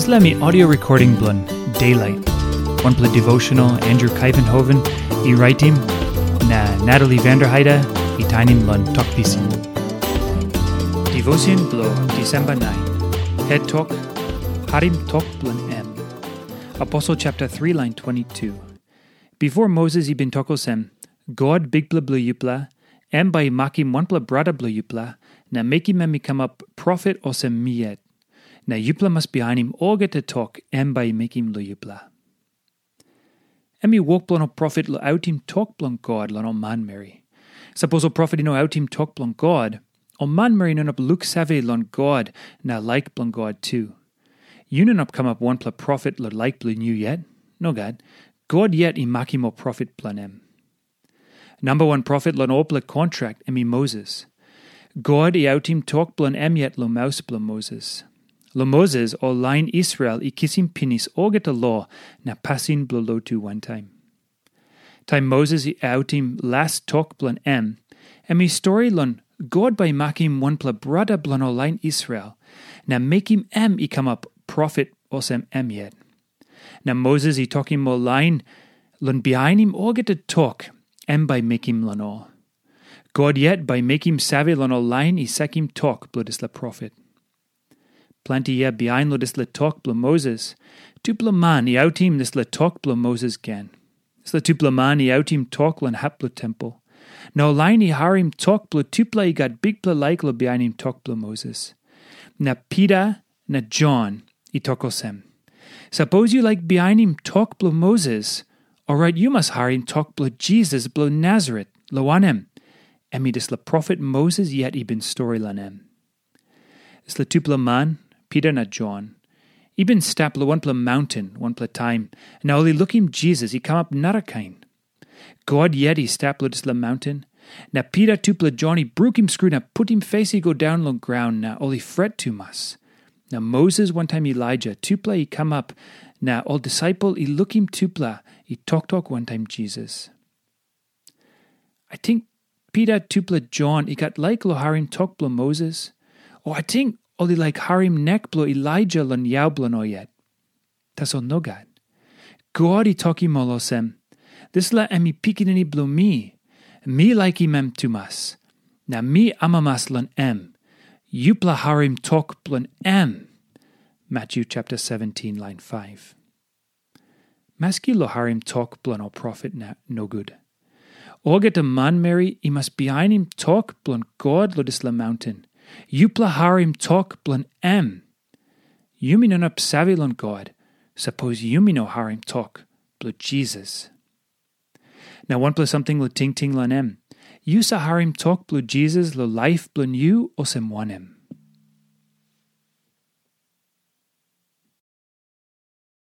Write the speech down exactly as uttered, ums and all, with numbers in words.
Dispela mi audio recording bilong Daylight, wanpela devotional Andrew Kaivenhoven i raitim, na Natalie Vanderheide i tainim long Tok Pisin. Devotion bilong Disemba nine. Het tok, harim tok bilong em. Aposel chapter three, lain twenty-two. Bipo Moses i bin tok olsem, "God, Bikpela bilong yupela, em bai i makim wanpela brata bilong yupela, na mekim em i kamap profet olsem mi yet. Na yupela mas bihainim olgeta tok em bai i mekim long yupela." Em i wok bilong ol profet long autim tok bilong God long ol manmeri. Sapos ol profet i no autim tok bilong God, ol manmeri i no inap luksave long God na laik bilong God tu. Yu no inap kamap wanpela profet long laik bilong yu yet. Nogat. God yet i makim ol profet bilong em. Namba wan profet long olpela kontrak em i Moses. God i autim tok bilong em yet long maus bilong Moses. Long Moses, ol lain Israel i kisim pinis olgeta lo na pasin bilong lotu wantaim. Taim Moses i autim las tok bilong em, em i stori long God bai i makim wanpela brata bilong ol lain Israel, na mekim em i kamap profet olsem em yet. Na Moses i tokim ol lain long bihainim olgeta tok em bai mekim long ol. God yet bai mekim save long ol lain i sakim tok bilong dispela profet. Planti yia bihain long dispela tok bilong Moses, tupela man i autim dispela tok bilong Moses gen. Dispela tupela man i autim tok long hap bilong tempel. Na ol lain i harim tok bilong tupela i gat bikpela laik long bihainim tok bilong Moses. Na Pita na Jon i tok olsem, "Sapos yu laik bihainim tok bilong Moses, orait yu mas harim tok bilong Jisas bilong Nasaret, long wanem, em i dispela profet Moses yet i bin stori long em." Dispela tupela man, Pita na Jon, i bin stap long wanpela maunten wanpela taim, na ol i lukim Jisas i kamap narakain. God yet i stap long dispela maunten, na Pita tupela Jon i brukim skru na putim fes i go daun long graun, na ol i fret tumas. Na Moses wantaim Elaija tupela i kamap, na ol disaipel i lukim tupela i toktok wantaim Jisas. Ating Pita tupela Jon i gat laik long harim tok bilong Moses, o ating ol i laik harim nek bilong Elaija long yau bilong ol yet. Tasol nogat. God i tokim ol olsem, "Dispela em i pikinini bilong mi. Mi laikim em tumas. Na mi amamas long em. Yupela harim tok bilong em." Matthew chapter seventeen, lain five. Maski long harim tok bilong ol profet na nogut. Olgeta manmeri i mas bihainim tok bilong God long dispela maunten. Yupela harim tok bilong em. Yumi no inap save long God, sapos yumi no harim tok bilong Jisas. Na wanpela samting long tingting long em. Yu sa harim tok bilong Jisas long laip bilong yu olsem wanem?